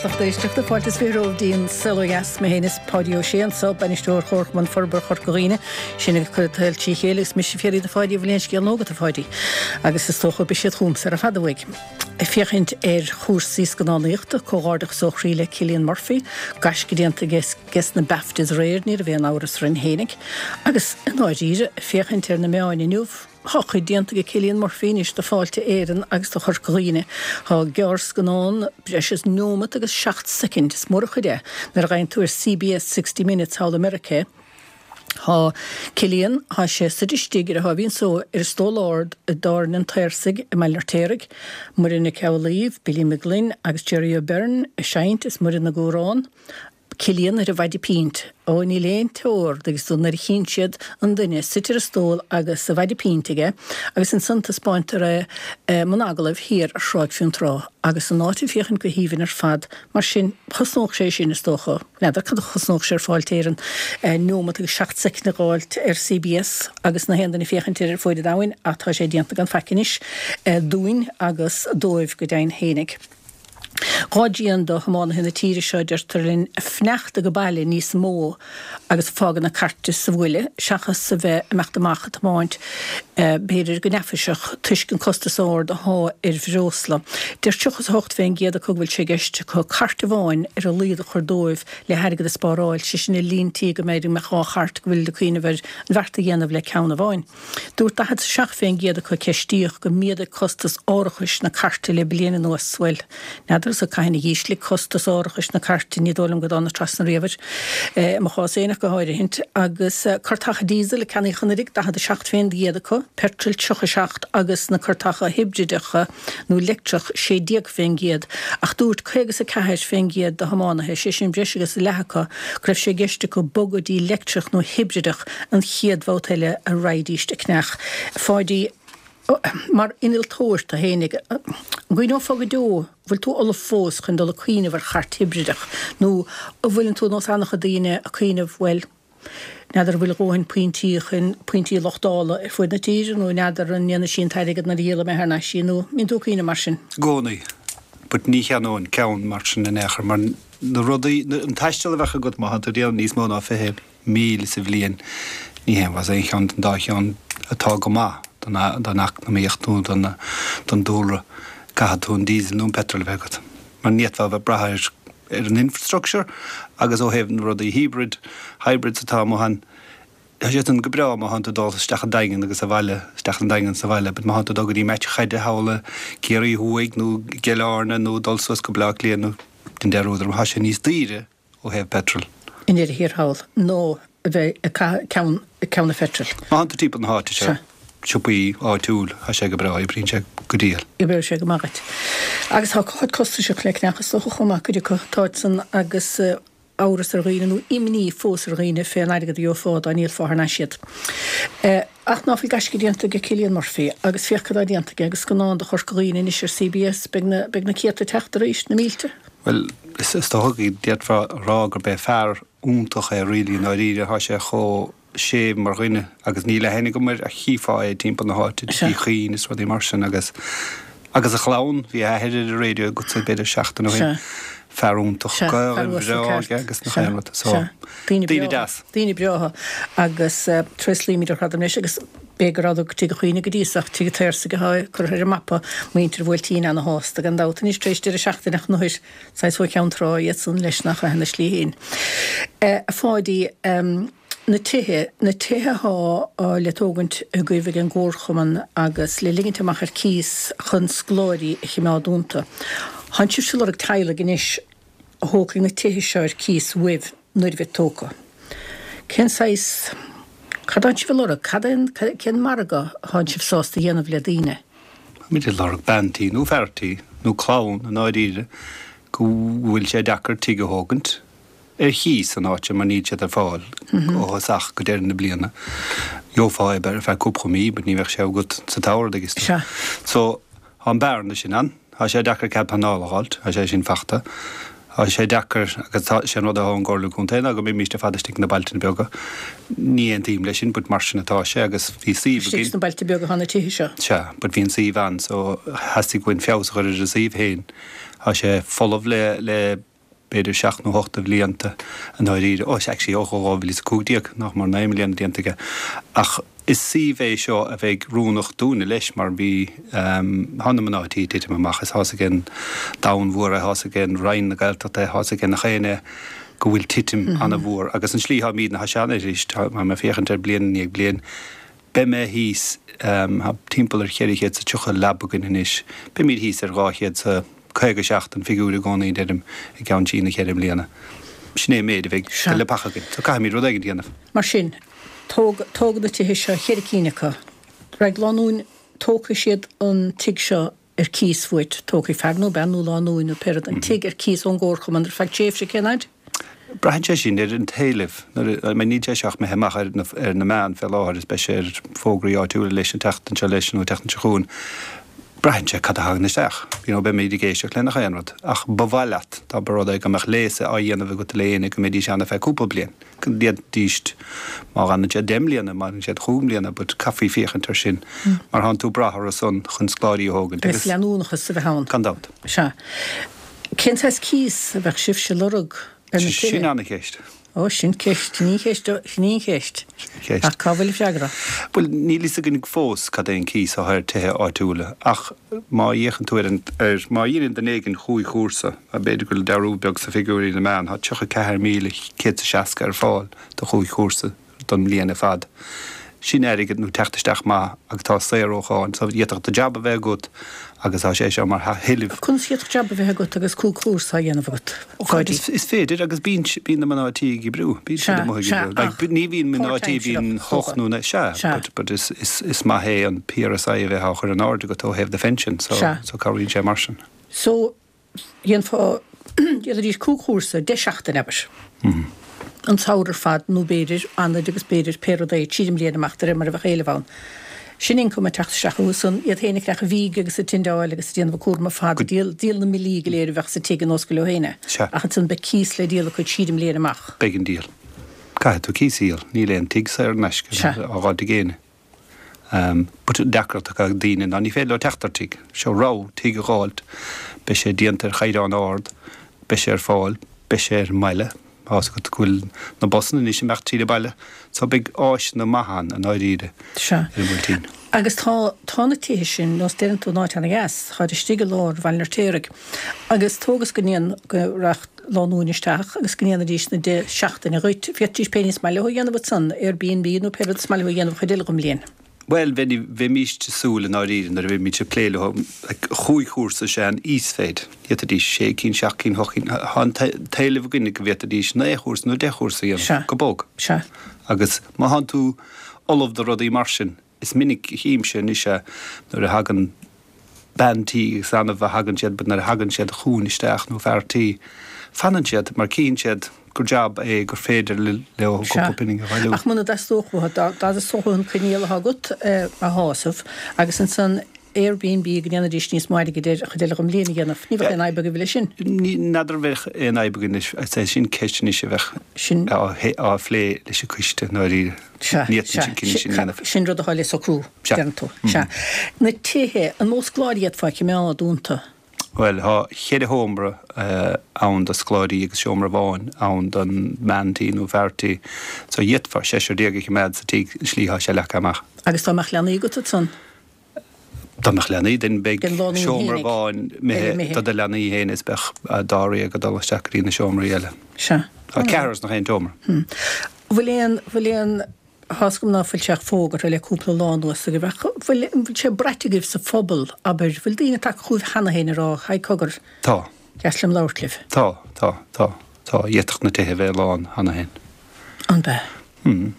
lucht éisteachta. Fáilte is 20 romhaibh go dtí An Saol Ó Dheas. Mé féin is Páidí Ó Sé anso, Bainisteoir Chomharchumann Forbartha Chorca Dhuibhne. Sinn ag cur an tsaoil trí chéile agus mise ag fiafraí de Pháidí an bhfuil aon scéal nua agat a Pháidí. Agus is dócha beidh siad chugamsa ar fad uaidh. Ag féachaint ar chúrsaí scannánaíochta, comhghairdeachas ó chroí le Cillian Murphy, gaisce déanta aige aige sna BAFTAs aréir, ní raibh aon amhras orainn fhéinig. Agus i ndáiríre, ag féachaint ar na meáin inniu, Tá cuid déanta ag Cillian Murphy anois do Fáilte Éireann agus do Chorca Dhuibhne. Tá gearrscannán breis is neomat agus 7 soicind, is mór an chuid é, nuair a gheibheann tú ar CBS 60 Minutes thall i Meiriceá. Tá Cillian, tá sé suite istigh ar a thaobhín só ar stól ard i dTábhairne an tSaorsaigh i mBaile an Fheirtéaraigh. Muireann Nic Amhlaoibh, Billy McGlynn agus Gerry O'Beirne ag seinnt is Muireann ag amhrán. Cillian ar a mhaide pint. Ó, níl aon teora agus tú nuair a chíonn siad an duine suite ar an stól agus a mhaide pint aige agus ansan taispeáintear é i mbun agallaimh thiar ar Thráigh Fionntrá agus an áit ag féachaint go haoibhinn ar fad mar sin chosnódh sé sin is dócha. N'fheadar cad a chosnódh sé ar Fáilte Éireann neomat agus 7 soicind a dh'fháilt ar CBS agus na haon duine ag féachaint air ar fuaid an domhain ach tá sé déanta gan faic anois dúinn agus dóibh go deimhin fhéinig. Gá dian do thiománaithe na tíre seo, deirtear linn, fanacht age baile níos mó agus fágáil na cairte sa bhaile seachas a bheith ag imeacht amach ag tiomáint, b'fhéidir go neafaiseach, toisc an costas ard athá ar bhreosla. Deir 38% acu go bhfuil sé i gceist acu cairt amháin ar a laghad a chur dóibh le hairgead a spáráil, sé sin i líon tí go mb'fhéidir go mbeadh dhá chairt go bhfuil ag cuimhneamh ar an bheart a dhéanamh le ceann amháin. Dúirt 47% acu a ceistíodh gur mhéadaigh costas árachais na cairte le bliain anuas. Bhuel, n'fheadar so cathain a dh'ísligh costas árachais na cairte, ní dóigh liom go dtáinig trasna riamh air, i mo chás fhéin ach go háirithint. Agus cairteacha diesel a ceannaíodh anuraidh, 47% acu, petrol 37 agus na cairteacha hibrideacha nó leictreach 16%. Ach dúirt 54% de thiománaithe, sé sin breis agus leath acu, go raibh sé i gceist acu bogadh dtí leictreach nó hibrideach an chéad bhabhta eile a raghaidíst ag cneach. A Pháidí, mar innealtóir tú fhéinig, an gcuimhneofá go deo, an bhfuil tú ullamh fós chun dul ag cuimhneamh ar chairt hibrideach nó an bhfuileann tú nós an-chuid daoine ag cuimhneamh, bhuel, n'fheadar an bhfuil a dhóthain pointí chun pointí luchtála ar fuaid na tíre nó n'fheadar an ndéanfaidh sí an t-airgead nuair a dhíolfaidh mé thar n-ais í nó an mbíonn tú ag cuimhneamh mar sin? I gcónaí. But ní cheannóinn ceann mar sin in aon chor mar na rudaí, an taisteal a bheadh agat má thánn tú ag déanamh níos mó ná 20 míle sa bhliain, ní haon mhaith aon cheann den dá cheann atá go maith don eacnamaíocht nó don dúlra. Caithfidh tú an diesel nó an petrol a bheith agat mar ní fhéadfá a bheith ag brath ar ar an infrastructure agus ó thaobh na rudaí híbrid, hybrids atá amuigh ann, tá siad san go breá má thánn tú ag dul isteach an Daingean agus abhaile, isteach an Daingean is abhaile, but má thánn tú ag dul go dtí match chaide thall i gCiarraí Thuaidh nó i gCill Airne nó dul suas go Baile Átha Cliath nó den deireadh, tá sé níos daoire ó thaobh petrol. I ndeireadh thiar thall ná a bheith ag caitheamh ceann, ceann an pheitril. Má thánn tú timpeall na háite seo, siopaí áitiúil, tá sé go breá, oibríonn sé go diail. Oibreoidh sé go maith dhuit. Agus tá cuid costasach le cneach is dócha chomh maith, cuid acu, táid san agus amhras ar dhaoine nó imní fós ar dhaoine fén airgead a gheofá dá ndíolfá thar n-ais iad. Ach ná fuil gaisce déanta ag Cillian Murphy agus féach cad tá déanta aige agus scannán do Chorca Dhuibhne anois ar CBS, beidh na, beidh na céadta ag teacht arís, na mílte. Bhuel, is dócha go d'fhéadfá a rá gurb é fear iontach é really i ndáiríre, tá sé chomh séimh mar dhuine agus níl aithne agam air ach chífeá é timpeall na háite, Tigh Uí Chuinn is rudaí mar sin agus agus a chlann, bhí a athair ar an raidió agatsa b'fhéidir seachtain ó shin, fear iontach, Gaelainn bhreá aige agus nach aon rud, so daoine deas. Daoine breátha agus tréaslaímid ar fad leis agus b'fhéidir go rabhadar go Tigh Uí Chuinn go dtí so ach Tigh an tSaorsaigh atá curtha ar an mapa, muintir an Bhuailtín ana-shásta gan dabht anois tar éis deireadh seachtaine ach nuair Saghas ó Cheann Trá iad san leis nach ea ina slí féin. A Pháidí, na tithe, na tithe athá le tógaint agaibh ag an gComharchumann agus le ligint amach ar cíos chun scoláirí a chimeád iontu. Thánn sibhse ag lorg teaghlaigh anois a thógfaidh na tithe seo ar cíos uaibh nuair a bheid tógtha. Cén saghas, cad thánn sibh ag lorg? Cad é an, cén margadh athánn sibh sásta a dhéanamh le daoine? Táimid ag lorg bean tí nó fear tí, nó clann i ndáiríre, go bhfuil sé deacair tigh a thógaint ar chíos san áit seo mar níl siad ar fáil ó thosach go deireadh na bliana. Gheofá é ar feadh cúpla mí but ní bheadh sé agat sa tsamhradh agus Sea. So, tá an bearna sin ann. Tá sé deacair cead pleanála a dh'fháilt, tá sé sin fachta. Tá sé deacair, agus tá, sé an rud atá ón gComhairle Contae ná go mbeimíst ar fad istigh sna bailte beaga. Ní aontaím leis sin but mar sin atá sé agus bhí suíomh againn. Istigh sna bailte beaga atá na tithe seo. Sea, but bhí an suíomh ann so theastaigh uainn feabhas a chur ar an suíomh féin. Tá sé folamh le, le. b'fhéidir seacht nó hocht de bhlianta i ndáiríre, ó actually ó 2015, nach mór 9 mbliana déanta aige. Ach is suíomh é seo a bheidh oiriúnach dúinne leis mar bhí, tá na mná tí ag titim amach is tá's ag an domhan mhór é, tá's ag an Roinn na Gaeltachta é, tá's ag nach éinne go bhfuil titim an-mhór agus an slí tháimídne, tá sé an-arís, tá mé ag féachaint ar bliain i ndiaidh bliain, Beidh mé thíos, tá timpeall ar 430 leaba againn anois, beimid thíos ar 257 an figiúr i gcónaí, deirim, i gceann trí nó cheithre mbliana. Sin é an méid a bheidh de leapacha againn. So caithfimid rud éigin a dhéanamh. Mar sin, tóg, tógadh na tithe seo, cheithre cinn acu. Raghaidh lánúin, tógfaidh siad an tigh seo ar cíos uait, tógfaidh fear nó bean nó lánúin nó pé rud an tigh ar cíos ón gcomharchumann ar feadh tréimhse, cén fhaid? Braitheann sé sin ar an t-éileamh. Nuair a, I mean níl sé seo ach imithe amach ar na, ar na meáin fé láthair is beidh sé ar fógraí áitiúla leis an tseachtain seo leis nó an tseachtain seo chugainn. Braitheann sé cad a thagann isteach. You know, beimid ag éisteacht le nach aon rud. Ach ba mhaith leat, dá mba rud é go mbeadh léas á dhéanamh agat le éinne go mbeidís ann ar feadh cúpla bliain. Go ndéanfaidís, má fhanann siad 10 mbliana, má fhanann siad chúig mbliana, but caithfí féachaint air sin mar thánn tú ag brath orthu san chun scoláirí a thógaint agus. Agus leanúnachas a bheith ann. Gan dabht. Sea. Cén saghas cíos a bheadh sibhse ag lorg ar na tithe? Sin ana-cheist. Ó, sin ceist, sin í an cheist, sin í an cheist. Sin an cheist. Ach cá bhfuil an freagra? Bhuel, níl fhios againn fós cad é an cíos atá ar tithe áitiúla ach má fhéachann tú ar an, ar, má dhéanann duine éigin chúig chúrsa, B'fhéidir go bhfuil dearúd beag sna figiúirí na meán, tá 34,160 ar fáil do chúig chúrsa don mbliain ar fad. Sin airgead nó teacht isteach maith agus tá saor ó cháin so d'fhéadfadh do jab a bheith agat agus tá sé seo mar thuilleamh. Conas a d'fhéadfadh jab a bheith agat agus cúig chúrsa á dhéanamh agat, a Pháidí? Is féidir agus bíonn bíonn na mná tí ag oibriú, bíonn siad amuigh ag oibriú. Like ní bhíonn mná tí, bíonn hocht nó naoi, sea, but but is is is maith é an PRSI a bheith á chur in airde agat ó thaobh do phension so so cabhraíonn sé mar sin. So, dhéanfá, dhéanfaidís cúig chúrsa, 10 seachtain, abair, an samhradh ar fad nó b'fhéidir anaid agus b'fhéidir pé rud é, tríd an mbliain amach de réir mar a bheadh éileamh ann. Sin ioncam ag teacht isteach chucu san, iad féin ag creachadh fíge agus ag tindeáil agus ag déanamh an cúram ar fad, ag díol, díol na mbillí go léir a bheadh sa tigh ar nós gur leo féin é. Sea. Ach ansan beidh cíos le díol acu tríd an mbliain amach. Beidh an díol. Caithfidh tú cíos a dhíol. Níl aon tigh saor in aisce Sea. á dh'fháilt ag éinne. But an deacracht atá ag daoine ná ní féidir leo teacht ar tigh. Seo rogha, tigh a dh'fháilt, beidh sé déanta ar chaighdeán ard, beidh sé ar fáil, beidh sé ar an mbaile, tá's agat go bhfuil na busanna anois ag imeacht tríd an baile, so beidh áiseanna maithe ann i ndáiríre Sea. ar an mBuailtín. Agus tá, tá na tithe sin, nós deireann tú, in áit ana-dheas, táid istigh i lár Bhaile an Fheirtéaraigh. Agus tóg is go ndéan, go rachadh lánúin isteach agus go ndéanfaidís na 10 seachtaine dhuit, féadfaidís pé ní is maith leo a dhéanamh ansan, Airbnb nó pé rud is maith leo a dhéanamh an chuid eile den mbliain. Bhuel, bheimíst ag súil i ndáiríre nuair a bheimid ag plé leo, like, chúig chúrsa is ea an íosmhéid. D'fhéadfaidís sé cinn, seacht cinn, hocht cinn, tá an t-éileamh againne go bhféadfaidís naoi chúrsa nó deich chúrsa a dhéanamh, go bog. Sea. Agus má thánn tú ullamh do rudaí mar sin, Is minic a chímse anois é nuair a thagann bean tí, is annamh a thagann siad, but nuair a thagann siad chugainn isteach, nó fear tí, fanann siad mar cíonn siad gur jab é gur féidir leo cúpla pingin a bhailiú. Ach muna dteastódh uathu, dá dteastódh uathu an coinníoll atá agat a shásamh agus ansan Airbnb go ndéanfaidís níos mó airgid air an chuid eile den mbliain a dhéanamh, ní bheadh aon fhadhb agaibh leis sin. N'fheadar an bheadh aon fhadhb againn leis, is é sin ceist anois a bheadh á phlé leis an coiste i ndáiríre. Sea, Ní fhéadfainn sea, an cinneadh sin a dhéanamh. sin rud atá le socrú, Sea. deireann tú. Sea. Na tithe, an mó scoláirí a d'fhéadfá a choimeád iontu? Bhuel, tá cheithre sheomra ann do scoláirí agus seomra amháin ann don mbean tí nó fear tí. So d'fhéadfá seisear déag a choimeád sa tigh, an slí atá sé leagtha amach. Agus dá mbeadh leanaí agat ansan? Dá mbeadh leanaí, then beidh Den lánúin seomra fhéinig. amháin Eile imithe imithe. do do leanaí féin is beadh dáréag ag dul isteach go dtí na seomraí eile. Sea. Tá ceathrar sna haon tseomra. Bhfuil aon, bhfuil aon, tá's agam ná fuil sé ach fógartha le cúpla lá anuas agaibh ach bhfuil, an bhfuil sé braite agaibh sa phobal, abair, bhfuil daoine tagtha chugaibh cheana féin ag rá, haigh cogar, Tá. deas liom labhairt libh. Tá, tá, tá, tá. D'fhéadfadh na tithe a bheith lán cheana féin. An bea? Hmm.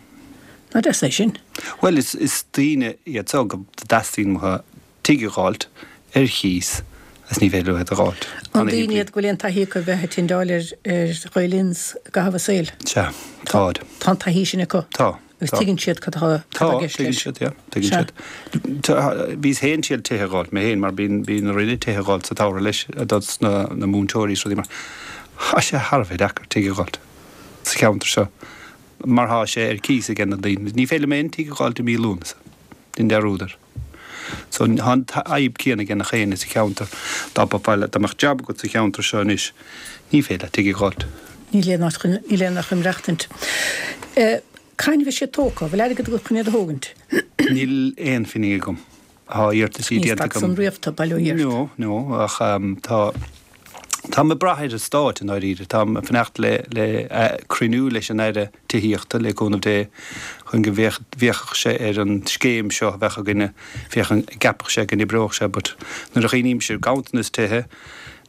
Nach deas é sin? Bhuel, is, is daoine iad so go dteastaíonn uathu tigh a dh'fháilt ar chíos agus ní féidir leo iad a dh'fháilt. An daoine iad go bhfuil aon taithí acu a bheith ag tindeáil ar ar Ghael Inns i gcaitheamh a saoil? Sea, táid. Tá an taithí sin acu? Tá. Agus Tá. tuigeann siad cad atá Tá, cad atá i gceist tuigeann leis? siad, yeah, tuigeann Sea. siad. Tá, bhíos féin ag triail tithe a dh'fháilt, mé féin, mar bíonn, bíonn orainne tithe a dh'fháilt sa tsamhradh leis, dos na, na múinteoirí is rudaí mar. Tá sé thar a bheith deacair tigh a dh'fháilt sa cheantar seo mar tá sé ar cíos ag na daoine. Ní féidir liom aon tigh a dh'fháilt i mí Lúnasa, déan dearúd air. So tá an fhadhb céanna ag nach éinne sa cheantar. Dá mbeifeá le, dá mbeadh jab agat sa cheantar seo anois, ní féidir leat tigh a dh'fháilt. Níl aon áit chun, níl aon áit chun maireachtaint. Cathain a bheidh siad tógtha? Bhfuil airgead agat chun iad a thógaint? Níl aon phingin agam. Tá iarrataisí déanta agam. Ní stad san riamh tú, bail ó Dhia ort. No, no, ach tá, táim ag brath ar an Stát i ndáiríre. Táim ag fanacht le, le cruinniú leis an Aire Tithíochta, le cúnamh Dé, chun go bhféachfadh sé ar an scéim seo a bheadh againne, féachaint an gceapfadh sé go n-oibreodh sé, but nuair a chuimhnímse ar ganntanas tithe,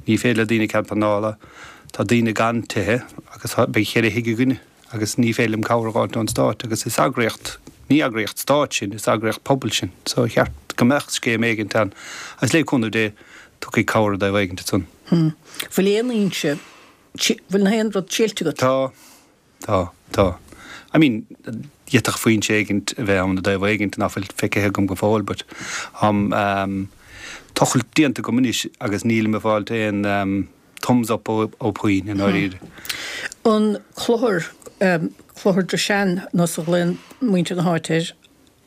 ní féidir le daoine cead pleanála, tá daoine gan tithe agus beidh cheithre thigh againne. agus ní féidir liom cabhair a dh'fháilt ón Stát agus is eagraíocht, ní eagraíocht Stáit sinn, is eagraíocht pobail sinn so ba cheart go mbeadh scéim éigint ann agus le cúnamh Dé tiocfaidh cabhair i dtaobh éigint ansan. Hm. Bhfuil aon fhoinse, bhfuil aon rud tuillte agat? Tá, tá, tá. I mean, d'fhéadfadh foinse éigint a bheith ann i dtaobh éigint nach bhfuil feicthe agam go fóill but tá tochailt déanta agam anois agus nílim ag fáilt aon thumbs up ó puinn i ndáiríre. An clochar, Clochar Drishane nós a ghlaonn muintir na háite air,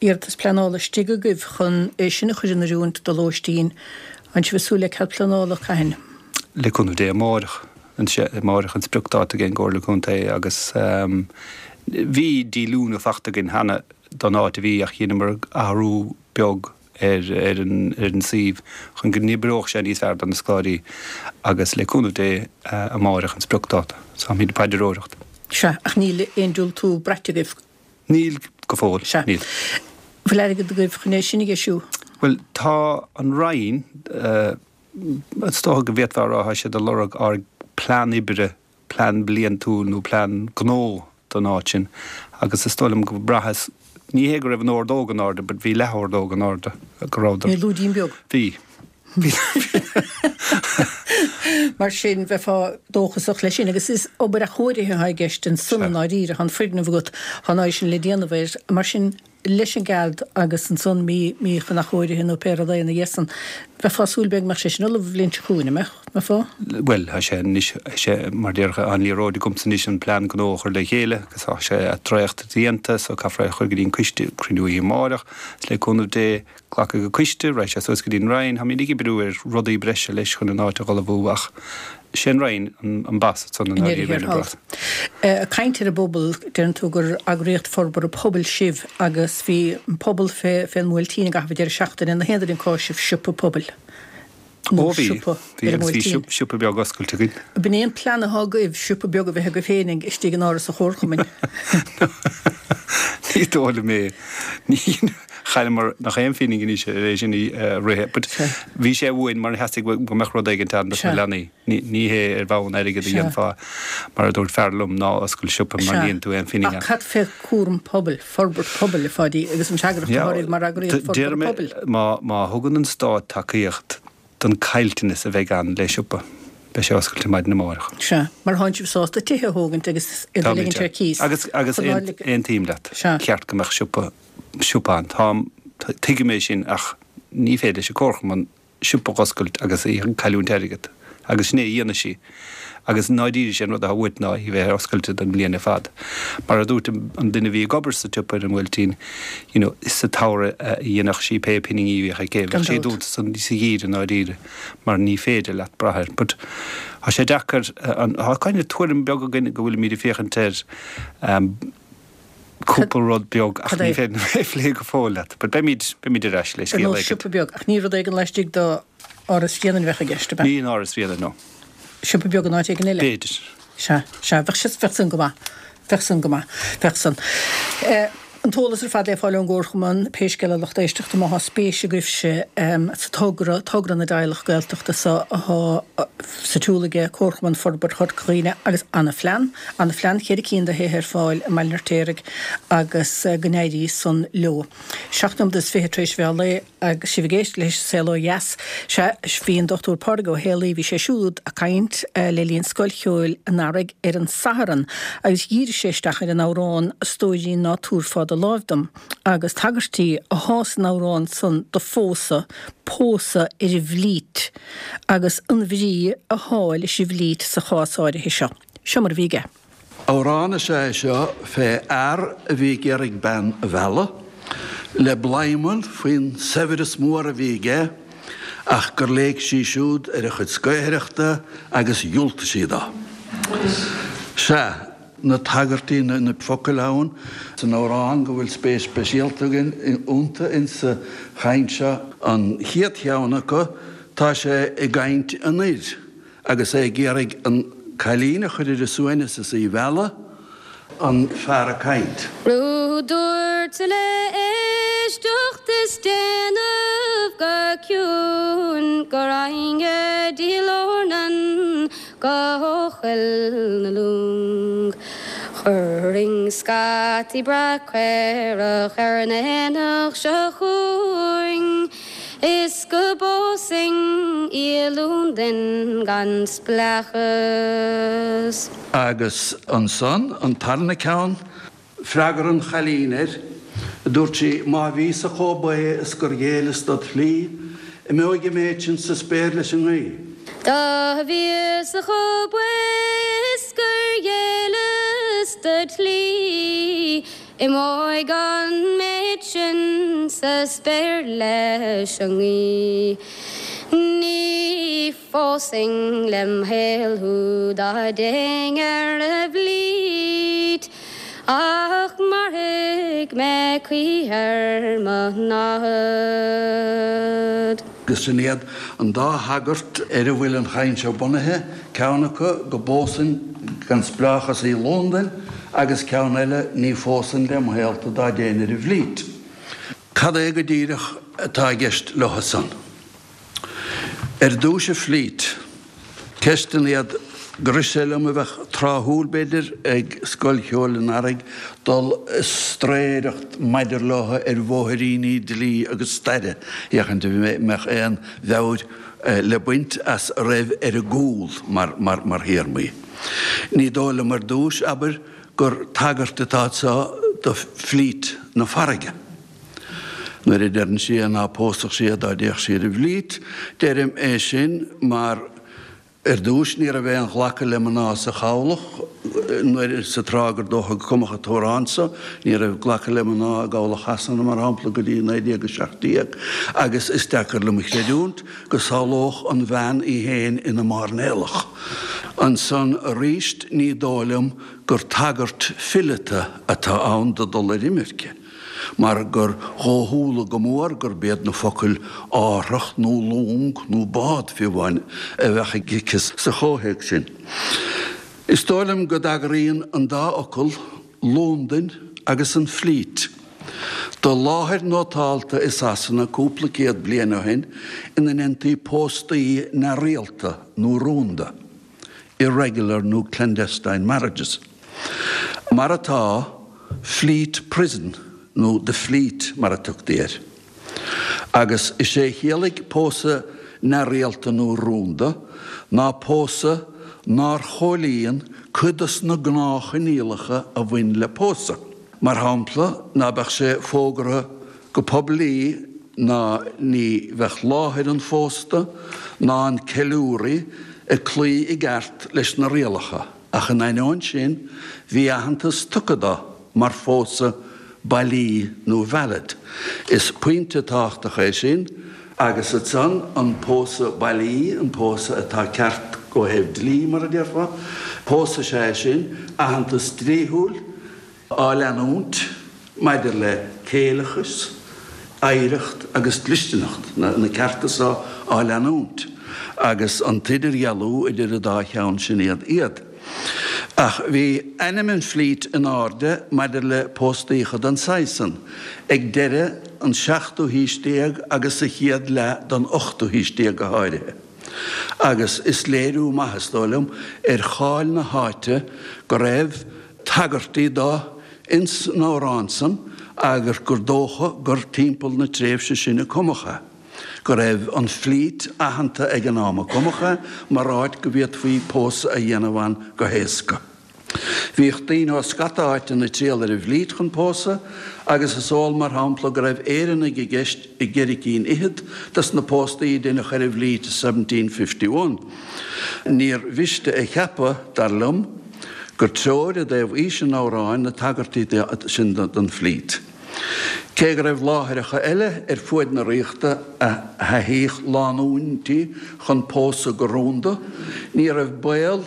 iarratas pleanála istigh agaibh chun é sin a chur in oiriúint do lóistín. An sibh ag súil le cead pleanála, cathain? Le cúnamh Dé amáireach, amáireach an spriocdáta ag an gComhairle Contae agus bhí díolúine fachta againn cheana don áit a bhí ach dheineamar athrú beag ar an suíomh chun go n-oibreodh sé níos fearr do na scoláirí agus le cúnamh Dé amáireach an spriocdáta. So táimid ag paidreoireacht. Sea, ach níl aon diúltú braite agaibh? Níl go fóill, Sea. níl. Bhfuil airgead agaibh chun é sin a dheisiú? Bhuel, tá an Roinn, is dócha go bhféadfá a rá, tá siad ag lorg ár bplean oibre plean bliantúil nó plean gnó don áit sin agus is dóigh liom go mbraitheas, ní hé go raibh an ordóg in airde but bhí leath-ordóg in airde, go rabhadar. Bhí lúidín beag. Bhí. Bhí. Mar sin, bheifeá dóchasach leis sin agus is obair athchóirithe atá i gceist ansan i ndáiríre, tá an foirgneamh agat, tá an áit sin le déanamh air, mar sin, leis an gcead agus ansan mí, mí chun athchóirithe nó pé rud é ina dhiaidh san. Bheifeá ag súil b'fhéidir go mbeadh sé sin ullamh an bhliain seo chugainn, an mbeadh? Mbeifeá? Bhuel, tá sé anois, tá sé mar déarfá an liathróid agamsa anois an plean gnó a chur le chéile agus tá sé dréachtaithe déanta so caithfear é a chur go dtí an coiste, cruinniú oíche amárach agus le cúnamh Dé glacfaidh an coiste, raghaidh sé suas go dtí an Roinn, táimid ag oibriú ar rudaí breise leis chun an áit a dh'ullmhú ach sé an Roinn an boss ansan i ndáiríre ar an bpróiseas. Ag caint ar an bpobal, deireann tú gur eagraíocht forbartha pobail sibh agus bhí an pobal fén mBuailtín i gcaitheamh an deireadh seachtaine, na haon duine ag cáiseamh siopa pobail nó Ó bhí, siopa bhí ar an agus bhí mBuailtín. siopa beag oscailte againn. B'in é an plean atá agaibh, siopa beag a bheith agaibh féinig istigh in áras an chomharchumainn. Ní dóigh liom é. Ní chailleamar nach aon phingin anois ar é sin a rith. But bhí sé uainn mar theastaigh go mbeadh rud éigin ann dos na leanaí. Ní hé ar bhonn airgid a dhéanfá, mar a dúirt fear liom, ná oscail siopa mar ní dhéanfaidh tú aon phingin ann. Ach cad fé chúram pobail, forbairt pobail, a Pháidí, agus an fhreagracht atá oraibh mar eagraíocht forbartha pobail? Má thugann an Stát tacaíocht don caillteanas a bheidh ann le siopa, beidh sé oscailte maidin amárach. Sea, mar thánn sibh sásta tithe a thógaint agus iad a ligint ar cíos. Agus agus aontaím leat, cheart go mbeadh siopa siopa ann. Táim, tuigim é sin ach ní féidir leis an Comharchumann siopa a dh'oscailt agus í ag cailliúint airgead. Agus sin é a dhéanfaidh sí. Agus i ndáiríre sé an rud atá uait ná í bheith oscailte don bhliain ar fad. Mar a dúirt an duine a bhí ag obair sa tsiopa ar an mBuailtín, you know, sa tsamhradh a dhéanfadh sí pé pinginí a bhíodh aici. Bheadh sí dúnta sa gheimhreadh i ndáiríre mar ní féidir leat brath air. But tá sé deacair, tá kind of tuairim beag againn go bhfuilimid ag féachaint air, cúpla rud beag ach ní féidir liom é a phlé go fóill leat. But beimid, beimid ar ais le scéal éigin. Ar nós siopa beag, ach ní rud éigin laistigh d'Áras Bhréanainn a bheadh i gceist, ab ea? Ní in Áras Bhréanainn, no. Siopa beag in áit éigin eile? B'fhéidir. Sea, sea, bheadh sé, bheadh san go maith. Bheadh san go maith. Bheadh san. An t-eolas ar fad le fáil ón gComharchumann, pé scéal é a lucht éisteachta, má thá spéis agaibhse sa togra, togra na dteaghlach Gaeltachta so athá sa tsiúl aige Comharchumann Forbartha Chorca Dhuibhne agus ana-phlean, ana-phlean, cheithre cinn de thithe ar fáil i mBaile an Fheirtéaraigh agus go n-éirí san leo. 7 nóiméad is 20 tar éis mheán lae agus sibh ag éisteacht leis an Saol Ó Dheas. Sea, bhí an Dr Pádraig Ó Héalaí, bhí sé siúd ag caint le linn Scoil Cheoil an Earraigh ar an Satharn agus dhírigh sé isteach ar an amhrán 'A Stóirín Ná Tabharfá Do Láimh Dom' agus tagairtí athá san amhrán san do phósadh, pósadh ar an bhflít agus an bhrí athá leis an bhflít sa chás áirithe seo. Seo mar a bhí aige. Amhrán is ea é seo fé fhear a bhí ag iarraidh bean a mhealladh. Le bladhmann faoin saibhreas mór a bhí aige ach gur léig sí siúd ar a chuid scaothaireachta agus dhiúltaigh sí dó. Sea, na tagairtí, na focail ann san amhrán go bhfuil spéis speisialta againn iontu insa chaint seo. An chéad cheann acu, tá sé i gcaint an fhir agus é ag iarraidh an cailín a chur ar a suaimhneas is í a mhealladh, an fear ag caint. Rud dúirt le éisteacht is déanamh go ciúin go raghainn go dtí Lornan go Coill na Long. Chuirfinn scataí breá caorach ar an aonach seo chugainn is go bpósfainn í i Londain gan spleáchas. Agus ansan, an tarna ceann, freagra an chailín air, dúirt sí, Má bhíos-sa chomh baoth is gur ghéilleas dod shlí, imeoidh an méid sin sa spéir leis an ngaoth. Dá bhíos-sa chomh baoth is gur ghéilleas dod shlí, imeoidh an méid sin sa spéir leis an ngaoth. Ní phósfainn lem shaol thú dá dtéinn ar an bhFleet ach mairfidh mé choíche ar mo námhaid. Agus sin iad an dá thagairt ar a bhfuil an chaint seo bunaithe, ceann acu go bpósfainn gan spleáchas í i Londain agus ceann eile ní phósfainn lem shaol tú dá dtéinn ar an bhFleet. Cad é go díreach atá i gceist leo san? Ar dtúis an Fleet. Ceisteanna iad gur rith sé liom a bheadh tráthúil, b'fhéidir, ag Scoil Cheoil an Earraigh dul ag straeireacht maidir leo ar bhóithríní dlí agus staire, féachaint an mbeadh aon mheabhair le baint as a raibh ar a gcúl mar théarmaí. Ní dóigh liom ar dtúis, abair, gur tagairt atá anseo do Fleet na farraige. Nuair a deireann sí é ná pósfadh sí é dá dtéadh sí ar an bhFleet, deirim é sin mar ar dtúis ní raibh aon ghlacadh le mná sa chabhlach nuair sa tráth gur dócha go cumadh an t-amhrán so, ní raibh glacadh le mná i gcabhlach Shasana mar shampla go dtí 1917 agus is deacair liom a chreidiúint go samhlódh an bhean í féin ina mairnéalach. Ansan aríst ní dóigh liom gur tagairt fileata atá ann do dul ar imirce. mar gur dhóchúla go mór gurb iad na focail árthach nó long nó bád, fiú amháin, a bheadh aici sa chomhthéacs sin. Is dóigh liom go dtagraíonn an dá fhocal, Londain agus an Fleet, do láthair nótálta i Sasana cúpla céad bliain ó shin ina ndéantaí póstaí neamhrialta nó rúnda. irregular nó clandestine marriages. Mar atá, Fleet Prison nó The Fleet mar a tugtaí air. Agus is é a chiallaigh pósadh neamhrialta nó rúnda ná pósadh nár chomhlíon cuid dos na gnáthchoinníollacha a bhain le pósadh. Mar shampla, ná beadh sé fógartha go poiblí ná ní bheadh láthair an phósta ná an ceiliúraí ag cloí i gceart leis na rialacha, ach in ainneoin sin bhí aitheantas tugtha dó mar phósadh bailí nó valid. Is pointe tábhachtach é sin, agus ansan an pósadh bailí, an pósadh atá ceart ó thaobh dlí, mar a déarfá, pósadh is ea é sin, aitheantas dlíthiúil, á leanúint maidir le céileachas, oidhreacht agus dlisteanacht, na cearta so á leanúint, agus an t-idirdhealú idir an dá cheann sin iad iad. Ach bhí ainm an Fleet in airde maidir le póstaíocha den saghas san ag deireadh an seachtú haois déag agus sa chéad leath den ochtú haois déag go háirithe. Agus is léiriú maith, is dóigh liom, ar cháil na háite go raibh tagairtí do ins an amhrán san agus gur dócha gur timpeall na tréimhse sin a cumadh é, go raibh an Fleet aitheanta ag an am a cumadh é mar áit go bhféadfaí pósadh a dhéanamh ann go héasca. Bhíodh daoine ó scata áiteanna ag triall ar an bhFleet chun pósadh agus is eol mar shampla go raibh Éireannaigh i gceist i gceithre cinn fhichead dos na póstaí a deineadh ar an bhFleet i 1751. Níor mhiste a cheapadh, dar liom, gur treoir i dtaobh aois an amhráin na tagairtí sin don Fleet. Cé go raibh láithreacha eile ar fuaid na ríochta a thaithíodh lánúintí chun pósadh go rúnda, ní raibh baol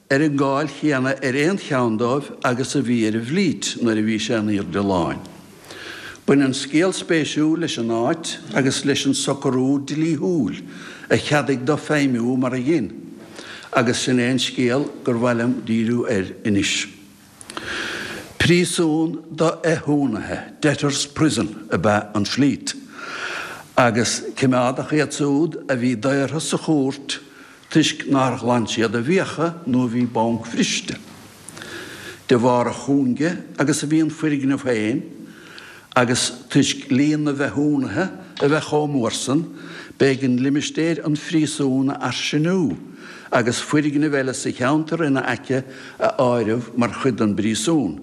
ar an gcáil chéanna ar aon cheann dóibh agus a bhí ar an bhFlít nuair a bhí sé in aoirde láin. Baineann scéal spéisiúil leis an áit agus leis an socrú dlíthiúil a cheadaigh dó feidhmiú mar a dhein, agus sin é an scéal gur mhaith liom díriú air anois. Príosún do fhéichiúnaithe, debtors' prison, ab ea an Fleet, agus coimeádadh iad siúd a bhí daortha sa chúirt toisc nár ghlan siad a bhfiacha nó a bhí bancbhriste. De bharr a chúinge agus a bhí an foirgneamh féin, Agus toisc líon na bhféichiúnaithe a bheith chomh mór san, b'éigean limistéir an phríosúin a fhairsingiú agus foirgnimh eile sa cheantar ina aice a áireamh mar chuid den bpríosún.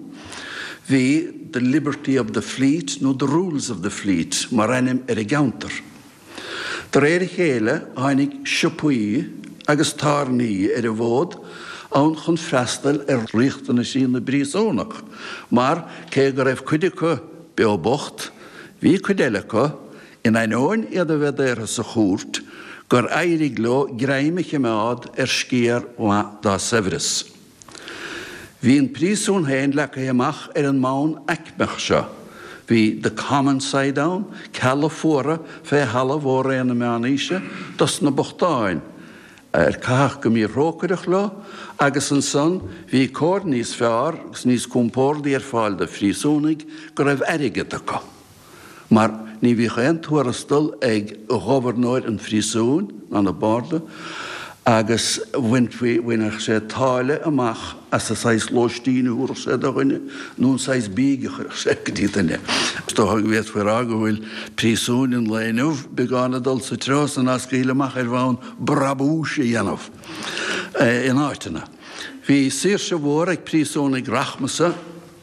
Bhí The Liberty of the Fleet nó The Rules of the Fleet mar ainm ar an gceantar. De réir a chéile tháinig siopaí agus tábhairní ar an bhfód ann chun freastal ar riachtanaisí na bpríosúnach mar, cé go raibh cuid acu beo bocht, bhí cuid eile acu, in ainneoin iad a bheith daortha sa chúirt, gur éirigh leo greim a chimeád ar sciar mhaith dá saibhreas. Bhí an príosún féin leagtha amach ar an mbonn aicmeach seo. Bhí the common side ann, cealla fuara fé thalamh ó ré na meánaoise dos na bochtáin, ar caitheadh go míthrócaireach leo, agus ansan bhí cóir níos fearr agus níos compórdaí ar fáil do phríosúnaigh go raibh airgead acu. mar ní bhíodh aon tuarastal ag gobharnóir an phríosúin ná na barda agus bhainfí, bhainfeadh sé táille amach as an saghas lóistín a thabharfadh sé do dhuine nó an saghas bídh a chuirfeadh sé go dtí duine. Is dócha go bhféadfaí a rá go bhfuil príosúin an lae inniu beagán ag dul sa treo san á scaoileadh amach ar bhonn brabúis a dhéanamh in áiteanna. Bhí saoirse mhór ag príosúnaigh rachmasa.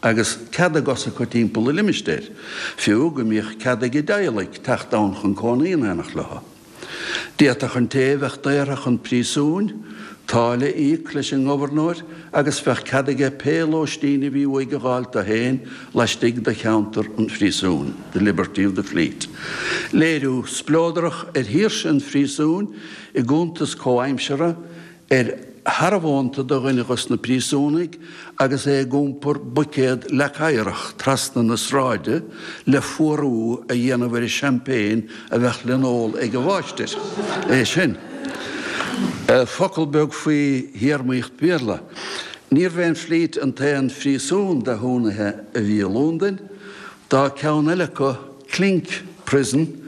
agus cead a gcos acu timpeall an limistéir, fiú go mbíodh cead ag a dteaghlaigh teacht ann chun cónaí in éineacht leo. D'fhéadfadh an té a bheadh daortha chun príosúin, táille a íoc leis an ngobharnóir agus bheadh cead aige pé lóistín a bhí uaidh a dh'fháilt dó féin laistigh de cheantar an phríosúin, the liberty of the Fleet. Léiriú spleodrach ar shaoirse an phríosúin i gcuntas comhaimseartha ar shearbhónta do dhuine dhos na príosúnaigh agus é ag iompar buicéad leac oighreach trasna na sráide le fuarú a dhéanamh ar an champagne a bheadh le n-ól ag an mháistir. É sin. Focal beag faoi théarmaíocht Bhéarla. Níorbh é an Fleet an t-aon phríosún d'fhéichiúnaithe a bhí i Lúndain. Tá ceann eile acu, Clink Prison,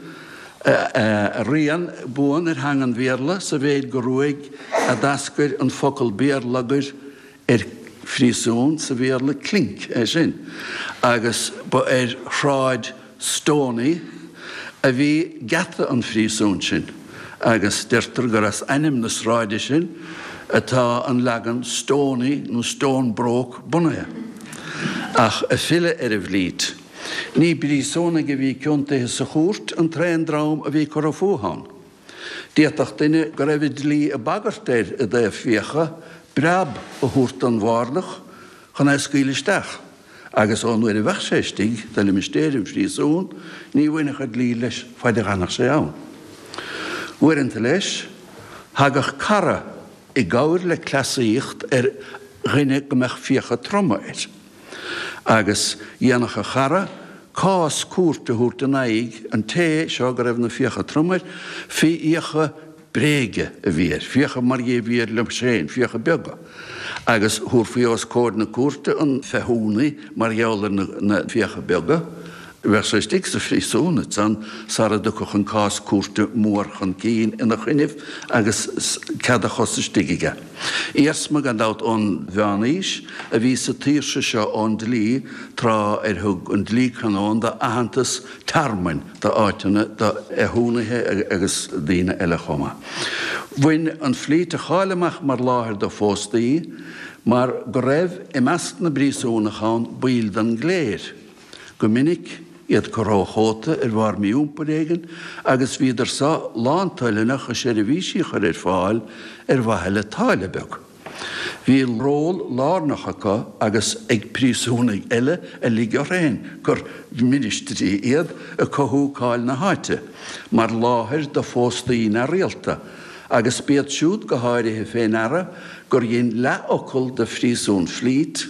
rian buan ar theanga an Bhéarla sa mhéid gur uaidh a d'eascair an focal béarlagair ar phríosún sa Bhéarla, clink, é sin, agus ba ar Shráid Stoney a bhí geata an phríosúin sin agus deirtear gur as ainm na sráide sin atá an leagan Stoney nó Stonebroke bunaithe. Ach ag filleadh ar an bhFleet. Ní príosúnaigh a bhí ciontaithe sa chúirt an t-aon dream a bhí curtha fúthu ann. D'fhéadfadh duine go raibh an dlí ag bagairt air i dtaobh fiacha breab a thabhairt don bhardach chun é a scaoileadh isteach, agus ón uair a bheadh sé istigh de limistéir an phríosúin ní bhainfeadh an dlí leis faid a dh'fhanfadh sé ann. Uaireanta leis, thagadh cara i gcabhair le cleasaíocht ar dhuine go mbeadh fiacha troma air. Agus dhéanfadh a chara cás cúirte a thabhairt in aghaidh an té seo go raibh na fiacha trom air, fé fhiacha bréige a bhí air, fiacha mar dhea a bhí air liom féin, fiacha beaga. Agus thabharfaí os comhair na cúirte an féichiúnaí mar gheall ar na fiacha beaga. Bheadh sé istigh sa phríosún ansan sara dtiocfadh an cás cúirte mór chun cinn ina choinnibh agus cead a chos istigh aige. Iarsma, gan dabht, ón Mheán-Aois a bhí sa tsaoirse seo ón dlí tráth ar thug an dlí canónda aitheantas tearmainn d'áiteanna do fhéichiúnaithe agus daoine eile chomh maith. Bhain an Fleet a cháil amach mar láthair do phóstaí mar go raibh i measc na bpríosúnach ann baill den gcléir. Go minic, iad curtha ó chóta ar bharr mí-iompair éigin agus bhíodar so lántoilteanach a seirbhísí a chur ar fáil ar mhaithe le táille beag. Bhí ról lárnach acu agus ag príosúnaigh eile a lig orthu féin gur ministrí iad i cothú cáil na háite mar láthair do phóstaí neamhrialta agus b'iad siúd go háirithe fé ndeara gur dhein leathfhocal de phríosún Fleet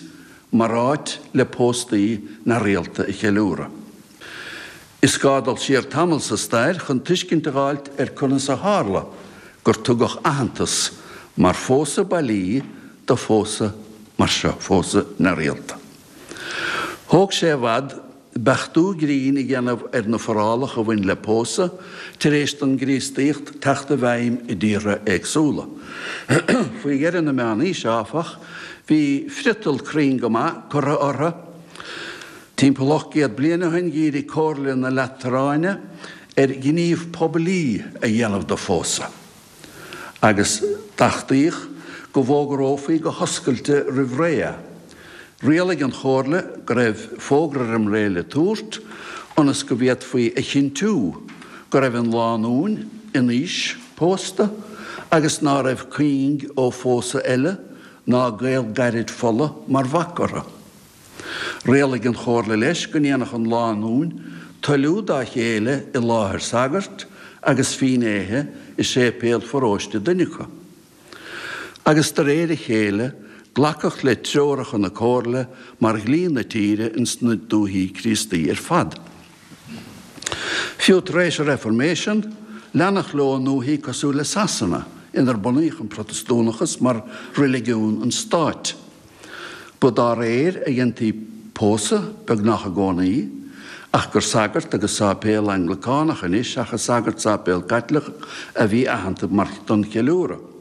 mar áit le póstaí neamhrialta a cheiliúradh. Is gá dul siar tamall sa stair chun tuiscint a dh'fháilt ar conas a tharla gur tugadh aitheantas mar phósadh bailí do phósadh mar seo, phósadh neamhrialta. Thóg sé i bhfad beachtú grinn a dhéanamh ar na forálacha a bhain le pósadh tar éis don gCríostaíocht teacht i bhfeidhm i dtíortha éagsúla. Faoi dheireadh na Meánaoise, áfach, bhí friotal cruinn go maith curtha orthu. Timpeall 800 bliain ó shin dhírigh Comhairle na Lataráine ar ghníomh poiblí a dhéanamh de phósadh, agus d'achtaíodh go bhfógrófaí go hoscailte roimh ré é. Rialaigh an Chomhairle go raibh fógra roim ré le tabhairt ionas go bhféadfaí a chinntiú go raibh an lánúin in aois pósta agus ná raibh cuing ó phósadh eile ná gaol gairid fola mar bhac orthu. Rialaigh an Chomhairle leis go ndéanfadh an lánúin toiliú dá chéile i láthair sagairt agus fínnéithe i séipéal pharóiste duine acu. Agus de réir a chéile glacadh le treoracha na Comhairle mar dhlí na tíre ins na dúichí Críostaí ar fad. Fiú tar éis an Reifirméisean, leanadh leo i ndúichí cosúil le Sasana, inar bunaíodh an Protastúnachas mar reiligiún an stáit. Ba dá réir a dhéantaí pósadh, beagnach i gcónaí, ach gur sagart agus sáipéal Anglacánach anois seachas sagart sáipéal Caitliceach a bhí aitheanta mar don cheiliúradh.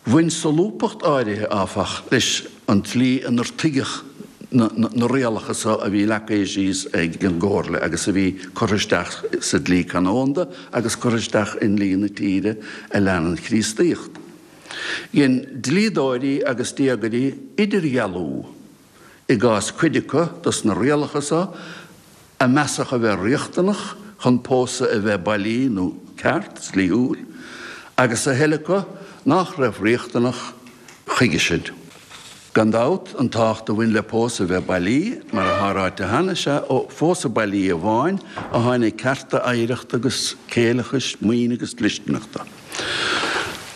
Bhain solúbthacht áirithe, áfach, leis an tslí inar tuigeadh na rialacha so a bhí leagtha síos ag an gComhairle agus a bhí curtha isteach sa dlí canónda agus curtha isteach i ndlí na tíre a lean an Chríostaíocht. Dhein dlíodóirí agus diagairí idirdhealú i gcás cuid acu dos na rialacha so a measadh a bheith riachtanach chun pósadh a bheith bailí nó ceart, dlíthiúil, agus a thuilleadh acu nách raibh riachtanach chuige sin. Gan dabht, an tábhacht a bhain le pósadh a bheith bailí, mar atá ráite cheana, is ea ó phósadh bailí amháin a tháinig cearta oidhreachta agus céileachais, maoine agus dlisteanachta.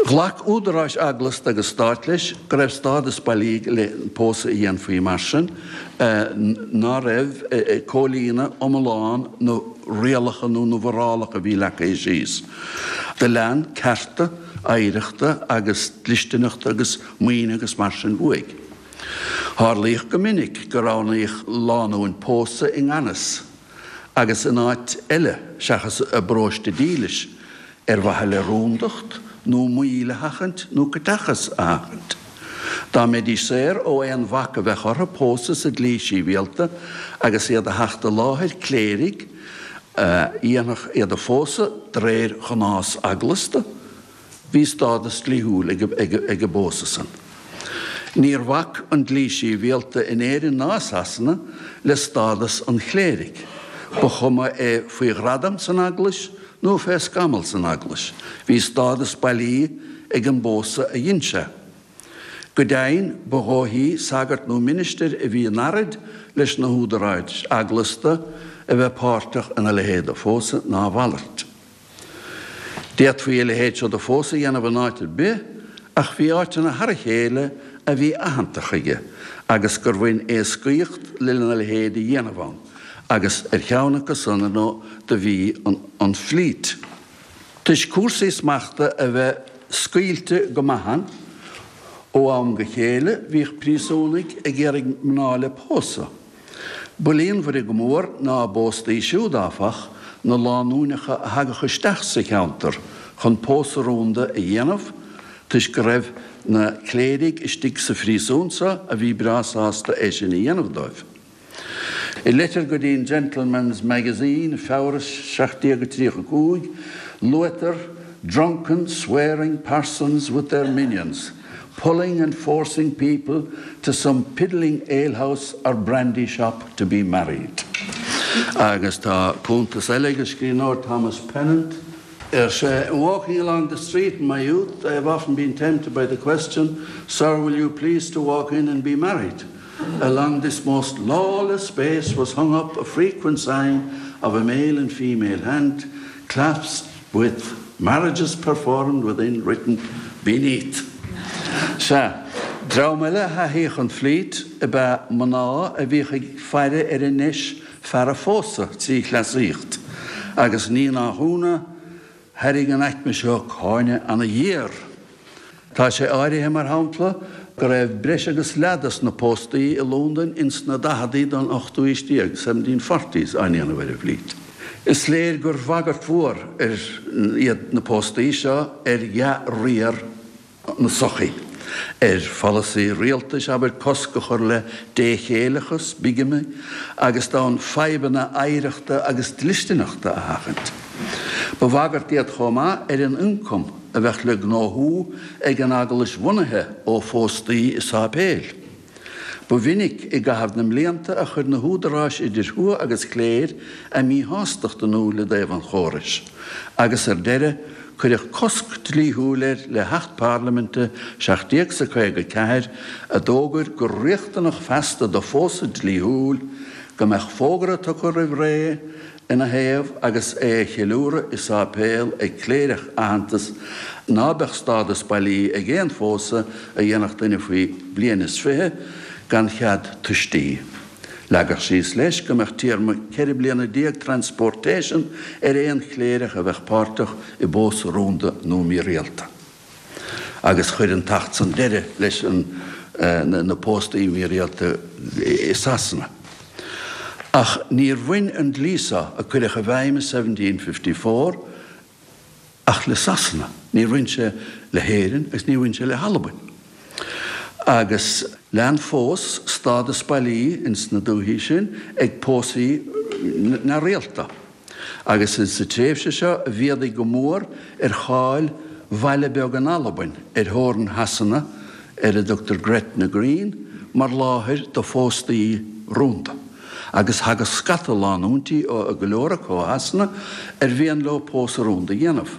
Ghlac údaráis eaglasta agus stáit leis go raibh stádas bailí le pósadh a dhéanfaí mar sin, ná raibh ag comhlíonadh iomlán na rialacha nó na bhforálacha a bhí leagtha síos. Do lean cearta oidhreachta agus dlisteanachta agus maoine agus mar sin uaidh. Tharlaíodh go minic go roghnaíodh lánúin pósadh i ngan fhios agus in áit eile seachas a bparóiste dílis, ar mhaithe le rúndacht nó moill a sheachaint nó caiteachas a sheachaint. Dá mbeidís saor ó aon bhac a bheadh orthu pósadh sa dlí síbhialta agus iad a theacht i láthair cléirigh a dhéanfadh iad a phósadh de réir ghnás eaglasta, Bhí stádas dlíthiúil ag an bpósadh san. Níor bhac an dlí síbhialta in Éirinn ná i Sasana le stádas an chléirigh, ba chuma é faoi ghradam san Eaglais nó fé scamall san Eaglais, bhí stádas bailí ag an bpósadh a dhein sé. Go deimhin, ba dhóichí sagart nó ministir a bhí in earraid leis na húdaráis eaglasta a bheith páirteach ina leithéid de phósadh ná a mhalairt. D'fhéadfaí a leithéid seo de phósadh a dhéanamh in áit ar bith, ach bhí áiteanna thar a chéile a bhí aitheanta chuige agus gur bhain éascaíocht lena leithéid a dhéanamh ann, agus ar cheann acu san, ar ndóigh, do bhí an Fleet. Toisc cúrsaí smachta a bheith scaoilte go maith ann, ó am go chéile bhíodh príosúnaigh ag iarraidh mná le pósadh. Ba líonmhaire go mór ná a bpóstaí siúd, áfach, na lánúineacha a thagadh isteach sa cheantar chun pósadh rúnda a dhéanamh, toisc go raibh na cléirigh istigh sa phríosún so a bhí breá sásta é sin a dhéanamh dóibh. I leitir go dtí an Gentleman's Magazine, Feabhra 1735, luaitear drunken, swearing parsons with their minions, pulling and forcing people to some piddling alehouse or brandy shop to be married. Agus tá cuntas eile ag an scríbhneoir Thomas Pennant. Ar sé, In walking along the street in my youth, I have often been tempted by the question, Sir, will you please to walk in and be married? Along this most lawless space was hung up a frequent sign of a male and female hand clasped with marriages performed within written beneath. Sea, dream eile a thaithíodh an Fleet ab ea mná a bhíodh ag faire ar a ndeis fear a phósadh trí chleasaíocht, agus ní nach ionadh, thairrig an aicme seo cáineadh ana-ghéar. Tá sé áirithe, mar shampla, go raibh breis agus leath dos na póstaí i Londain ins na daicheadaí den ochtú aois déag, seventeen forties, á ndéanamh ar an bhFleet. Is léir gur bhagairt mhór ar iad na póstaí seo ar dhea-riar na sochaí, ar pholasaí rialtais, abair, cosc a chur le déchéileachas, bigamy, agus d'fhonn fadhbanna oidhreachta agus dlisteanachta a sheachaint. Ba bhagairt iad chomh maith ar an ioncam a bheadh le gnóthú ag an eaglais bhunaithe ó phóstaí i sáipéil. Ba mhinic i gcaitheamh na mblianta a chuir na húdaráis idir thuath agus chléir a míshástacht in iúl i dtaobh an chórais, agus ar deireadh cuireadh cosc dlíthiúil air le hAcht Parlaiminte 1754 a d'fhógair gur riachtanach feasta do phósadh dlíthiúil go mbeadh fógra tugtha roimh ré ina thaobh agus é a cheiliúradh i sáipéal ag cléireach aitheanta ná beadh stádas bailí ag aon phósadh a dhéanfadh duine faoi bhliain is 20 gan chead tuistí. Leagadh síos leis go mbeadh téarma 14 bliana transportation ar aon chléireach a bheadh páirteach i bpósadh rúnda nó mírialta. Agus chuir an t-acht san deireadh leis na póstaí mírialta i Sasana. Ach níor bhain an dlí seo, a cuireadh i bhfeidhm i 1754, ach le Sasana. Níor bhain sé le hÉirinn agus níor bhain sé le hAlbain. Agus lean fós stádas bailí ins na dúichí sin ag pósaí neamhrialta. Agus is sa tréimhse seo a mhéadaigh go mór ar cháil bhaile beag in Albain ar theorainn Shasana ar a dtugtar Gretna Green mar láthair do phóstaí rúnda. Agus thagadh scata lánúintí ó, go leor acu ó Shasana, ar mhian leo pósadh rúnda a dhéanamh.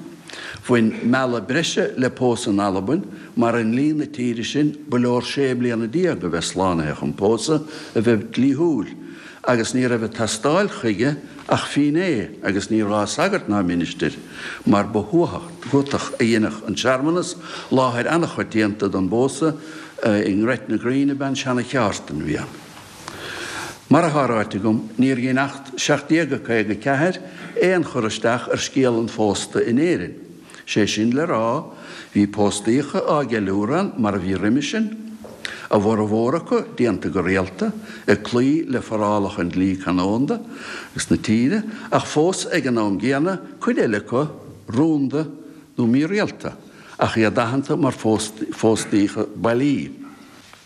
Bhain mealladh breise le pósadh in Albain mar i ndlí na tíre sin ba leor sé bliana déag a bheith slánaithe chun pósadh a bheith dlíthiúil agus ní raibh ag teastáil chuige ach fínné agus ní gá sagart ná ministir mar ba thuatach a dheineadh an searmanas, láthair an-choitianta don bpósadh i nGretna Green ab ea an seana-cheártain a bhí ann. Mar atá ráite agam, níor dhein Acht 1754 aon chur isteach ar scéal an phósta in Éirinn. Sé sin le rá, bhí póstaíocha á gceiliúradh ann mar a bhí roimis sin, a bhformhór acu déanta go rialta, ag cloí le forálacha an dlí canónda agus na tíre, ach fós ag an am gcéanna, cuid eile acu rúnda nó mírialta, ach iad aitheanta mar phóstaíocha bailí.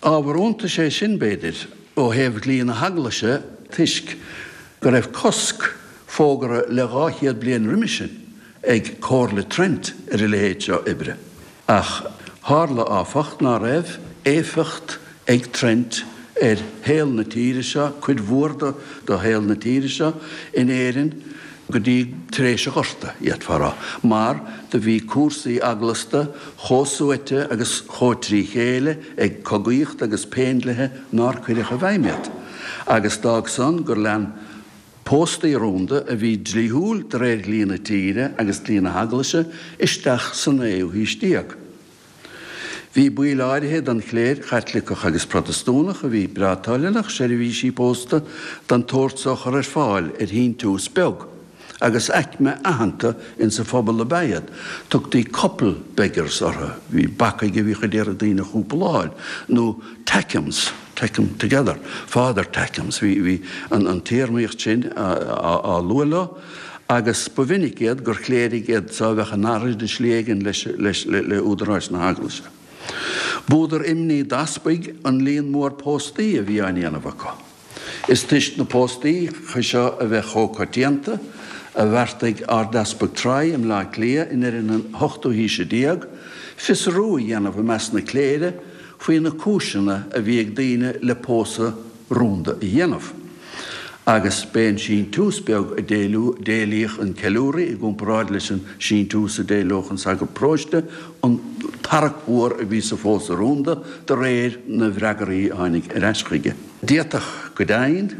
Ábhar iontais é sin, b'fhéidir, ó thaobh dhlí na hEaglaise toisc go raibh cosc fógartha le 200 bliain roimis sin ag Comhairle Trent ar a leithéid seo oibre. Ach tharla, áfach, ná raibh éifeacht ag Trent ar shaol na tíre seo, cuid mhór de shaol na tíre seo, in Éirinn go dtí tar éis an Ghorta, d'fhéadfá a rá, mar do bhí cúrsaí eaglasta chomh suaite agus chomh trí chéile ag cogaíocht agus péindlithe nár cuireadh i bhfeidhm iad. Agus d'fhág san gur lean Póstaí rúnda a bhí dlíthiúil de réir dhlí na tíre agus dlí na hEaglaise isteach sa naoú haois déag. Bhí baill áirithe den chléir Chaitliceach agus Protastúnach a bhí breá toilteanach seirbhísí pósta den tsórt so a chur ar fáil ar shíntiús beag, agus aicme aitheanta insa phobal ab ea iad. Tugtaí couple beggars orthu, bhí bacaigh a bhíodh ag iarraidh daoine a chúpláil, nó tackems, tack 'em together, father tackems, bhí, bhí an, an téarmaíocht sin á, á lua leo, agus ba mhinic iad gur chléirigh iad so a bheadh in earraid i slí éigin leis, leis, le, le údaráis na hEaglaise. B'údar imní d'easpaig an líon mór póstaí a bhí á ndéanamh acu. Is toisc na póstaíocha seo a bheith chomh coitianta, a bheartaigh Ardeaspag Troy i mBleá Cliath i ndeireadh na hochtú haoise déag, fiosrú a dhéanamh i measc na cléire faoi na cúiseanna a bhí ag daoine le pósadh rúnda a dhéanamh. Agus b'é an síntiús beag a d'éilíodh an ceiliúraí i gcomparáid leis an síntiús a d'éileodh an sagart paróiste an tarrac mhór a bhí sa phósadh rúnda de réir na bhfreagraí a tháinig ar ais chuige. D'fhéadfadh go deimhin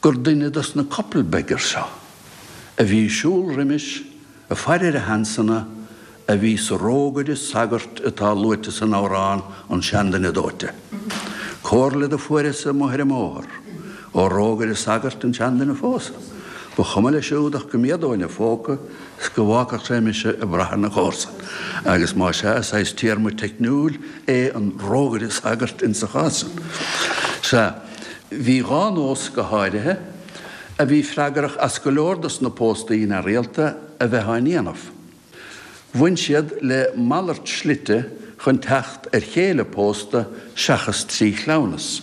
gur duine dos na couple beggars seo a bhí ag siúl roimis ag faire ar a sheansanna a bhí sa rógaire sagairt atá luaite san amhrán An Seanduine Dóite. Comhairle do fuaireas amuigh ar an mbóthar ó rógaire sagairt an seanduine a phósadh. Ba chuma leis siúd ach go méadóinn a phóca 's go bhfágfadh sé mise ag brath ar na comharsain. Agus más ea, is saghas téarma teicniúil é an rógaire sagairt insa chás san. Sea, bhí dhá nós go háirithe a bhí freagrach as go leor dos na póstaí neamhrialta a bheith á ndéanamh. Bhain siad le malairt slite chun teacht ar chéile pósta seachas trí chleamhnas,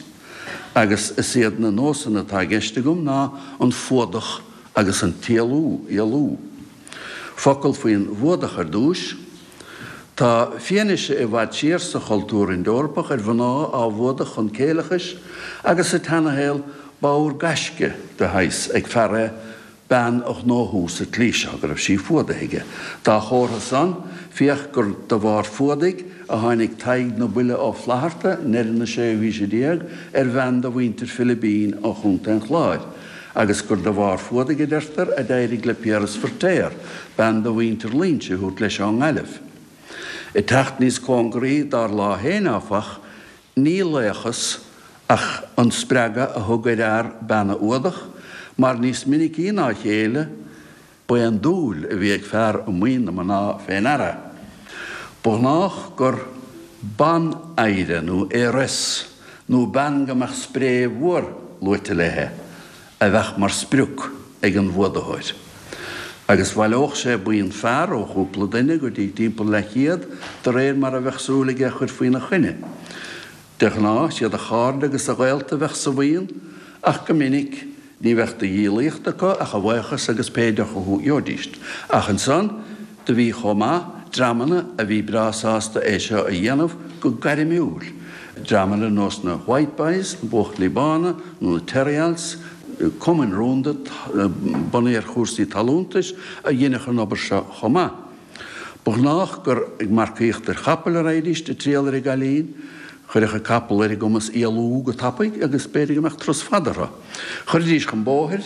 agus is iad na nósanna atá i gceist agam ná an fuadach agus an t-éalú, éalú. Focal faoin bhfuadach ar dtúis. Tá fianaise i bhfad siar sa chultúr Ind-Eorpach ar mhná á bhfuadach chun céileachais agus sa tseanashaol b'ábhar gaisce de shaghas ag fear é bean a ghnóthú sa tslí seo, go raibh sí fuadaithe aige. Dá chomhartha san, féach gur de bharr fuadaigh a tháinig Tadhg na Buile Ó Flaithearta, i ndeireadh na séú haoise déag, ar bhean de mhuintir Philibín ó Chontae an Chláir, agus gur de bharr fuadaigh, a deirtear, a d'éirigh le Piaras Feirtéar bean de mhuintir Loingsigh a thabhairt leis ón nGaillimh. Ag teacht níos cóngaraí dár lá féin, áfach, Ní laochas ach an spreagadh a thug ar fhear bean a fhuadach, mar níos minicí ná a chéile, ba é an dúil a bhí ag fear i maoin na mná fé ndeara. Ba ghnách gur ban-oidhre nó heiress, nó bean go mbeadh spré mhór luaite léi, a bheadh mar sprioc ag an bhfuadaitheoir. Agus bhaileodh sé buíon fear, ó chúpla duine go dtí timpeall leathchéad, de réir mar a bheadh súil aige a chur faoina choinne. De ghnáth, siad a chairde agus a ghaolta a bheadh sa bhuíon, ach go minic, ní bheadh de dhíolaíocht acu ach a bhuíochas agus pé deoch a gheobhaidíst. Ach ansan, Do bhí chomh maith dreamanna a bhí breá sásta é seo a dhéanamh go gairmiúil, dreamanna ar nós na White Boys, na Buachaillí Bána, nó na Terryals, cumainn rúnda bunaithe ar chúrsaí talúntais a dheineadh an obair seo chomh maith. Ba ghnách gur ag marcaíocht ar chapaill a raghaidíst ag triall ar an gcailín. Chuirfeadh an capall ar a gcumas éalú go tapaidh agus b'fhéidir go mbeadh turas fada orthu. Chuiridís chun bóthair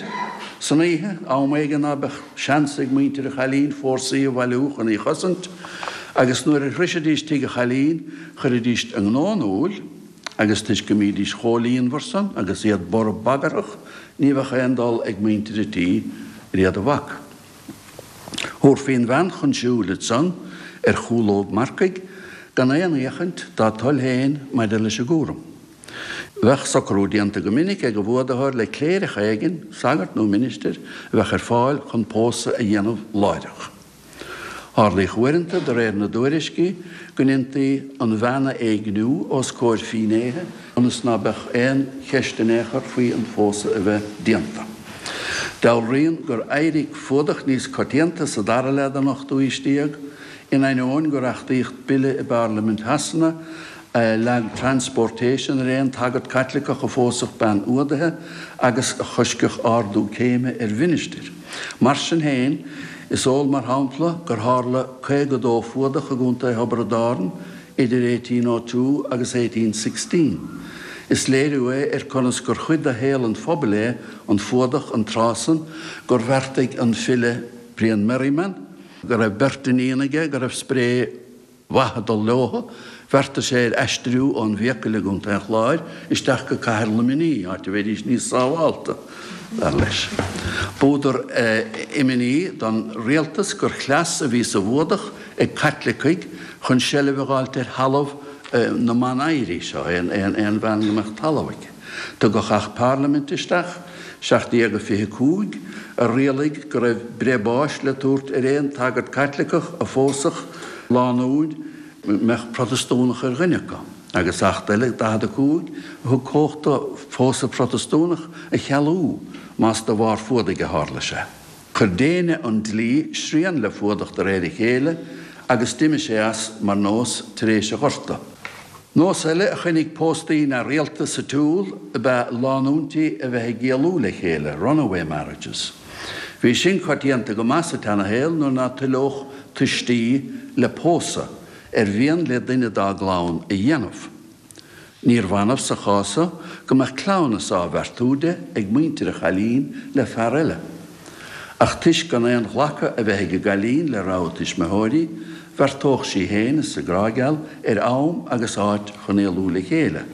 san oíche, am éigin ná beadh seans ag muintir an chailín fórsaí a bhailiú chun í chosaint, agus nuair a shroisidís tigh an chailín, chuiridís a ngnó in iúl, agus toisc go mbídís chomh líonmhar san agus iad borb bagarthach, ní bheadh aon dul ag muintir an tí ar iad a bhac. Thabharfaí an bhean chun siúil ansan ar chúlóg marcaigh gan aon fhéachaint dá toil féin maidir leis an gcúram. Bheadh socrú déanta go minic ag an bhfuadaitheoir le cléireach éigin, sagart nó ministir, a bheadh ar fáil chun pósadh a dhéanamh láithreach. Tharlaíodh uaireanta, de réir na dtuairiscí, go ndéantaí an bhean a éigniú os comhair fínnéithe ionas ná beadh aon cheist in aon chor faoi an phósadh a bheith déanta. Dealraíonn gur éirigh fuadach níos coitianta sa dara leath den ochtú haois déag, in ainneoin gur achtaíodh bille i bParlaimint Shasana a leag transportation ar aon tsagart Caitliceach a phósfadh bean fhuadaithe agus a choiscfeadh ardú céime ar mhinistir. Mar sin féin, is eol mar shampla gur tharla 52 fuadach i gContae Thiobraid Árann idir 1802 agus 1816. Is léiriú é ar conas gur chuid de shaol an phobail é an fuadach an tráth san gur bheartaigh an file Brian Merriman, go raibh beirt iníon aige go raibh spré mhaith ag dul leothu, bheartaigh sé ar aistriú ón bhFiacail i gContae an Chláir isteach go cathair Luimnigh, áit a mbeidís níos sábhálta, dar leis. B'údar imní don rialtas gur chleas a bhí sa bhfuadach ag Caitlicigh chun seilbh a dh'fháilt ar thalamh na mban-oidhrí seo, aon bhean go mbeadh talamh aici. Tugadh Acht Parlaiminte isteach, 1725, a rialaigh go raibh breith báis le tabhairt ar aon tsagart Caitliceach a phósfadh lánúin a mbeadh Protastúnach ar dhuine acu, agus Acht eile, 45, a thug cumhacht do phósadh Protastúnach a chealú más de bharr fuadaigh a tharla sé. Chuir déine an dlí srian le fuadach de réir a chéile agus d'imigh sé as mar nós tar éis an Ghorta. Nós eile a choinnigh póstaí neamhrialta sa tsiúl ab ea lánúintí a bheith ag éalú le chéile, runaway marriages. Bhí sin coitianta go maith sa tseanashaol nuair ná toileodh tuistí le pósadh ar mhian le duine dá gclann a dhéanamh. Níorbh annamh sa chás so go mbeadh cleamhnas á bheartú di ag muintir an chailín le fear eile. Ach toisc gan aon ghlacadh a bheith ag an gcailín le rogha a tuismitheoirí, bheartódh sí féin is a grá geal ar am agus áit chun éalú le chéile.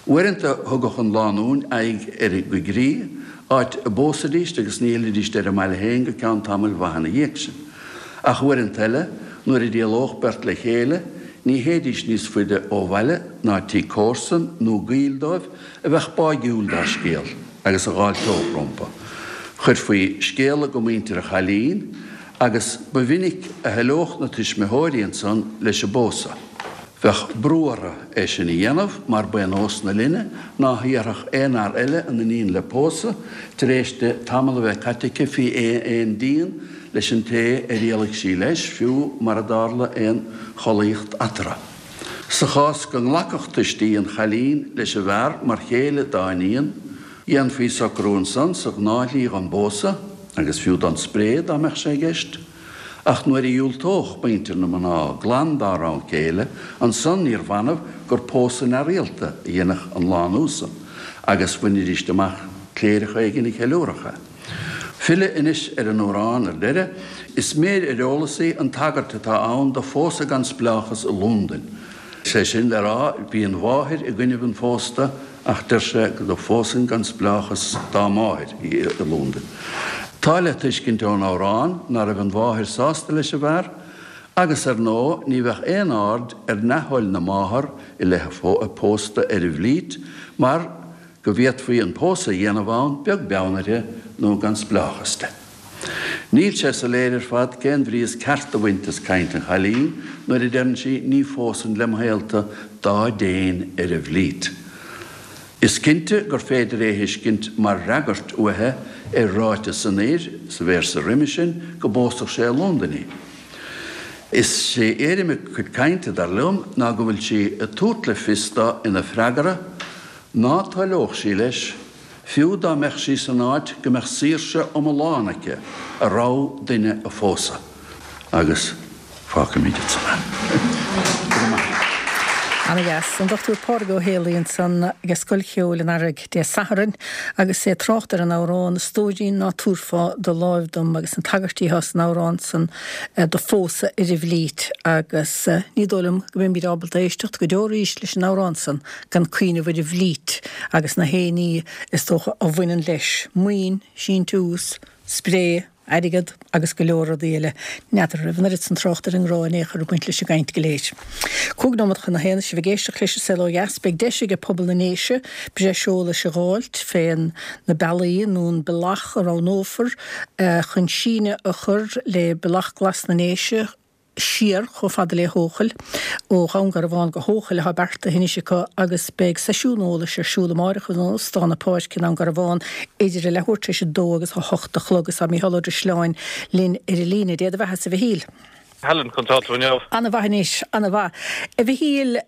Uaireanta thugadh an lánúin aghaidh ar an gcoigrích, áit a bpósaidíst agus ní fhillidíst ar a mbaile féin go ceann tamaill mhaith ina dhiaidh sin. Ach uaireanta eile, nuair a d'éalódh beirt le chéile, ní théidís níos faide ó bhaile ná tigh comharsan nó gaoil dóibh a bheadh báigiúil dá scéal agus a dh'fháilteodh rompu. Chuirfí scéala go muintir an chailín agus ba mhinic a thoileodh na tuismitheoirí ansan leis an bpósadh. Bheadh brú orthu é sin a dhéanamh mar ba é nós na linne ná hiarrfadh aon fhear eile a n-iníon le pósadh tar éis di tamall a bheith caite aici faoi aon díon leis an té ar éalaigh sí leis, fiú mara dtarla aon chollaíocht eatarthu. Sa chás go nglacfadh tuistí an chailín leis an bhfear mar chéile dá n-iníon, dhéanfaí socrú ansan sa ghnáthshlí don bpósadh, agus fiú don spré dá mbeadh sé i gceist. Ach nuair a dhiúltódh muintir na mná glan dá rogha céile, ansan níorbh annamh gur pósadh neamhrialta a dhéanfadh an lánúin san, agus bhainidíst amach cléireach éigin a cheiliúrfadh é. Filleadh anois ar an amhrán ar deireadh, is méir ar eolas í an tagairt atá ann do phósadh gan spleáchas i Lúndain. Sé sin le rá, bhí an mháthair i gcoinnibh an phósta, Ach deir sé go bpósfainn gan spleáchas dá máthair í i Lúndain. Tá le tuiscint ón amhrán ná raibh an mháthair sásta leis an bhfear, agus ar ndóigh ní bheadh aon aird ar neamhthoil na máthar i leith a pósta ar an bhFleet mar go bhféadfaí an pósadh a dhéanamh ann beag beann uirthi nó gan spleáchas de. Níl sé soiléir ar fad cén bhrí is ceart a bhaint as caint an chailín nuair a deireann sí 'ní phósfainn lem shaolta dá dtéinn ar an bhFleet'. Is cinnte gur féidir é a thuiscint mar fhreagairt uaithi ar ráiteas an fhir sa véarsa roimhe sin go bpósfadh sé i Londain í. Is é éirim a cuid cainte, dar liom, ná go bhfuil sí ag tabhairt le fios dó ina freagra ná toileodh sí leis, Fiú dá mbeadh sí san áit go mbeadh saoirse iomlán aici a rogha duine a phósadh. Agus fágfaimid ansan é. Go raibh maith agat. Ana-dheas. An Dr Pádraig Ó Héalaí ansan ag Scoil Cheoil an Earraigh Dé Sathairn agus é ag trácht ar an amhrán 'A stóirín ná tabharfá do láimh dom' agus na tagairtí atá san amhrán san do phósadh ar an bhFleet agus ní dóigh liom go mbeimid ábalta éisteacht go deo arís leis an amhrán san gan cuimhneamh ar an bhFleet agus na haon ní is dócha a bhaineann leis, maoin, síntiús, spré, airgead agus go leor rudaí eile. N'fheadar an raibh an oiread san trácht ar an ngrá in aon chor ag baint leis an gcaint go léir. 5 nóiméad chun a haon, sibh ag éisteacht leis an Saol Ó Dheas. Beidh deis ag pobal na nDéise breis eolais a dh'fháilt fén na bealaí nó an bealach a roghnófar chun síneadh a chur le Bealach Glas na nDéise, siar chomh fada le hEochaill, ó Dhún Garbhán go hEochaill atá beartaithe anois acu agus beidh seisiún eolais ar siúl amáireach in Óstán na Páirce i nDún Garbhán idir a leathuair tar éis a dó agus a hocht a chlog agus tá Mícheál Ó Drisleáin linn ar an líne. Dé do bheatha-sa a Mhichíl. Helen, conas tá tú inniu? Ana-mhaith anois, ana-mhaith. A Mhichíl,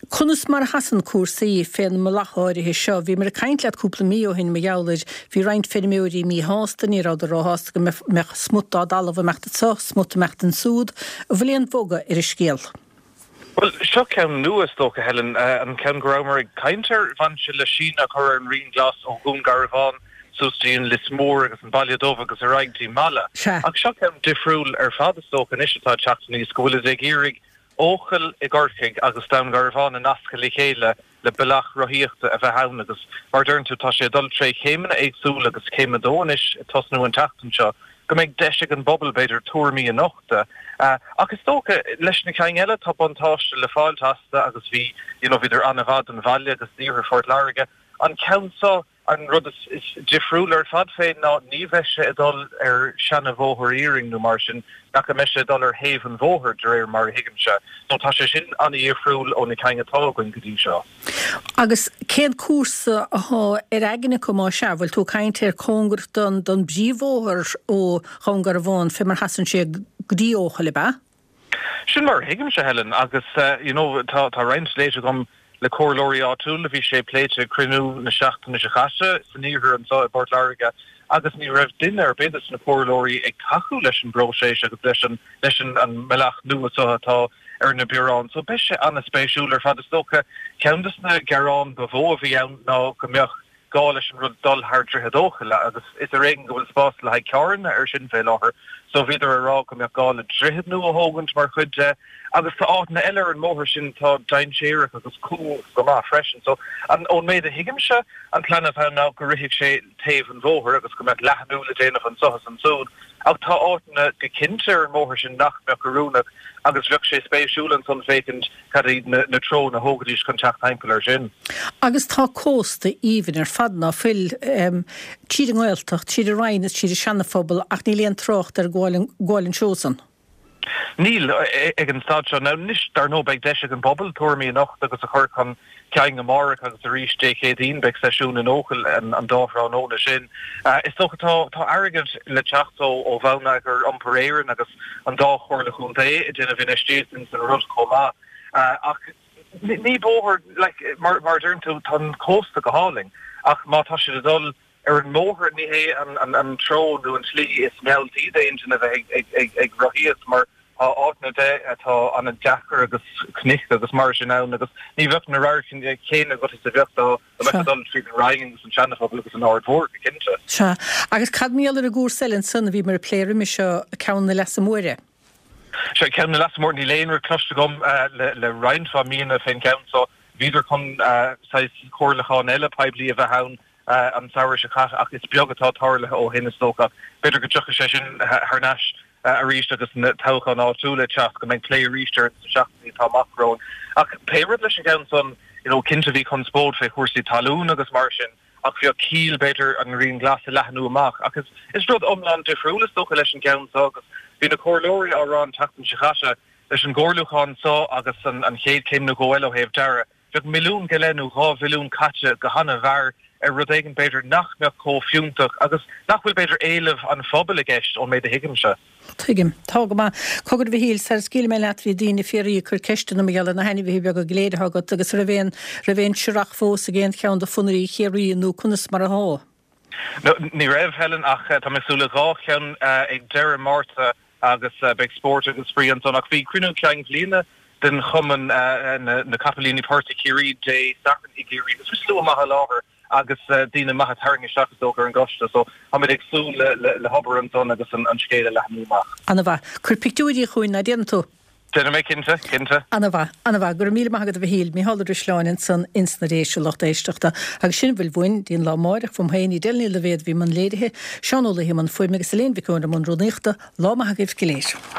Conas mar a sheasann cúrsaí fén mbealach áirithe seo? Bhíomar ag caint leat cúpla mí ó shin mar gheall air. Bhí roinnt feirmeoirí míshásta, ní rabhadar róshásta go mbeadh smut dá dtalamh ag imeacht anso, smut ag imeacht ansúd. An bhfuil aon bhogadh ar an scéal? Bhuel, seo ceann nua is dócha, Helen. An ceann go rabhamar ag caint air, bhain sé le síneadh a chur ar an Rian Glas ó Dhún Garbhán suas dtí an Lios Mór agus an Baile Dubh agus ar aghaidh dtí Mala. Sea. Ach seo ceann difriúil ar fad is dócha anois atá ag teacht aníos, go bhfuilid ag iarraidh Eochaill i gCorcaigh agus Dún Garbhán a nascadh le chéile le bealach rothaíochta a bheith ann agus mar a deireann tú tá sé ag dul tré chéimeanna éagsúla agus céim a dó anois ag tosnú an tseachtain seo go mbeidh deis ag an bpobal b'fhéidir tuairimí a nochtadh. Ach is dócha leis na cinn eile tá buntáiste le fáilt astu agus bhí you know bhíodar an-mhaith don bhaile agus d'iarthar Phort Láirge. An ceann seo An rud is difriúil ar fad fé ná ní bheidh sé ag dul ar seana-bhóthar iarainn nó mar sin, ach go mbeidh sé ag dul ar thaobh an bhóthair, de réir mar a thuigimse. So tá sé sin an-dhifriúil ó na cinn atá againn go dtí seo. Agus cén cúrsa athá ar aigne acu má sea? Bhfuil tú ag caint ar cóngarach don don bpríomhbhóthar ó Dhún Garbhán fé mar sheasann sé go dtí Eochaill, ab ea? Sin mar a thuigimse, Helen, agus you know tá tá roinnt léite agam le comhairleoirí áitiúla, bhí sé pléite ag cruinniú na seachtaine seo caite san iarthar anseo i bPort Láirge agus ní raibh duine ar bith des na comhairleoirí ag tacú leis an bpróiseas agus leis an leis an an mbealach nua seo atá ar na bioráin. So beidh sé an-spéisiúil ar fad. Is dócha ceann des na gearáin ba mhó a bhí ann ná go mbeadh gá leis an rud dul thar Droichead Eochaille agus is ar éigean go bhfuil spás le haghaidh carranna ar sin fé láthair so bhíodar ag rá go mbeadh gá le droichead nua a thógaint mar chuid de agus tá áiteanna eile ar an mbóthar sin atá dainséarach agus cúng go maith freisin so an ón méid a thuigimse an plean atá ann ná go rithfeadh sé taobh an bhóthair agus go mbeadh leathnú le déanamh anso is ansúd ach tá áiteanna go cinnte ar an mbóthar sin nach mbeadh oiriúnach agus bheadh sé spéisiúil ansan féachaint Cad iad na treonna a thógfaidís chun teacht thimpeall air sin? Agus tá cósta aoibhinn ar fad ná fuil, tríd an nGaeltacht, tríd an Rinn is tríd an Seana-Phobal ach níl aon trácht ar gabháil an seó san. Níl, ag an staid seo. Now anois, dar ndóigh, beidh deis ag an bpobal tuairimí a nochtadh agus a chur chun cinn amárach agus arís Dé Céadaoin beidh seisiún in Eochaill an dá thráthnóna sin. Is dócha tá tá airgead le teacht ó ó Bhonneagar Iompair Éireann agus an dá chomhairle chontae ag déanamh infheistíocht ins an rud chomh maith. Ach ní bóthar, like, mar a deireann tú, tá an cósta go hálainn ach má tá siad ag dul ar an mbóthar ní hé an treo nó an tslí is mealltaí d'aon duine a bheith ag rothaíocht mar tá áiteanna de atá an-deacair agus cnoic agus mar sin ann agus ní bheadh na radhairc chéanna agat is a bheadh dá mbeifeá ag dul tríd an Rinn agus an Seana-Phobal agus an Aird Mhór go cinnte. Sea. Agus cad mar gheall ar an gcúrsa eile ansan a bhíomar ag plé roimhe seo, ceann na Leasa Móire? Sea, ceann na Leasa Móire, níl aon rud cloiste agam le roinnt mhaith míonna fén gceann so. Bhíodar chun saghas comhairliúchán eile poiblí a bheith ann an samhradh seo caite ach is beag atá tarlaithe ó shin is dócha. B'fhéidir go dtiocfaidh sé sin thar n-ais arís agus na toghcháin áitiúla ag teacht, go mbeidh plé arís air sna seachtainí atá amach romhainn. Ach pé rud leis an gceann san, you know, cinnte bhí conspóid fé chúrsaí talún agus mar sin ach bheadh ciall b'fhéidir an Rian Glas a leathnú amach. Ach is, is rud iomlán difriúil is dócha leis an gceann seo agus bhí na comhairleoirí á rá an tseachtain seo caite leis an gcomhairliúchán seo agus an, an chéad chéim nó dhó eile ó thaobh dearadh, Bheadh milliún go leith nó 2 mhilliún caite go han-mhear ar rud éigin b'fhéidir nach mbeadh chomh fiúntach agus nach bhfuil b'fhéidir éileamh an phobail i gceist ón méid a thuigimse. Tuigim. Tá go maith. Cogar a Mhichíl, sara scaoilfidh mé leat bhí daoine ag fiafraí ag cur ceisteanna mar gheall ar na hainmhithe beaga go léir atá agat agus raibh aon raibh aon searrach fós ag aon cheann de phonnairí Chiarraí nó conas mar atá? Ní raibh, Helen, ach tá mé ag súil le dhá cheann ag deireadh Márta agus beidh spórt agus spraoi ansan. Ach bhí cruinniú cinn bhliana den chumann na Capaillíní Portaigh Chiarraí Dé Sathairn i gCiarraí agus bhí slua maith i láthair agus daoine maithe tarraingthe isteach is dócha ar an gcoiste so táimid ag súil le hobair ansan agus an scéal a leathnú amach. Ana-mhaith. Cuir pictiúirí chugainn, ná déanfaidh tú? Déanfaidh mé cinnte, cinnte. Ana-mhaith, ana-mhaith. Go raibh míle maith agat a Mhichíl. Mícheál Ó Drisleáin ansan ins na Déise, lucht éisteachta. Agus sin a bhfuil uainn, dtí'n lá amáireach, uaim féin, Edel Ní Loibhéad a bhí i mbun léirithe, Seán Ó Laoithe i mbun fuaime agus Elaine Mhic Eoin i mbun rúnaíochta. Lá maith agaibh go léir.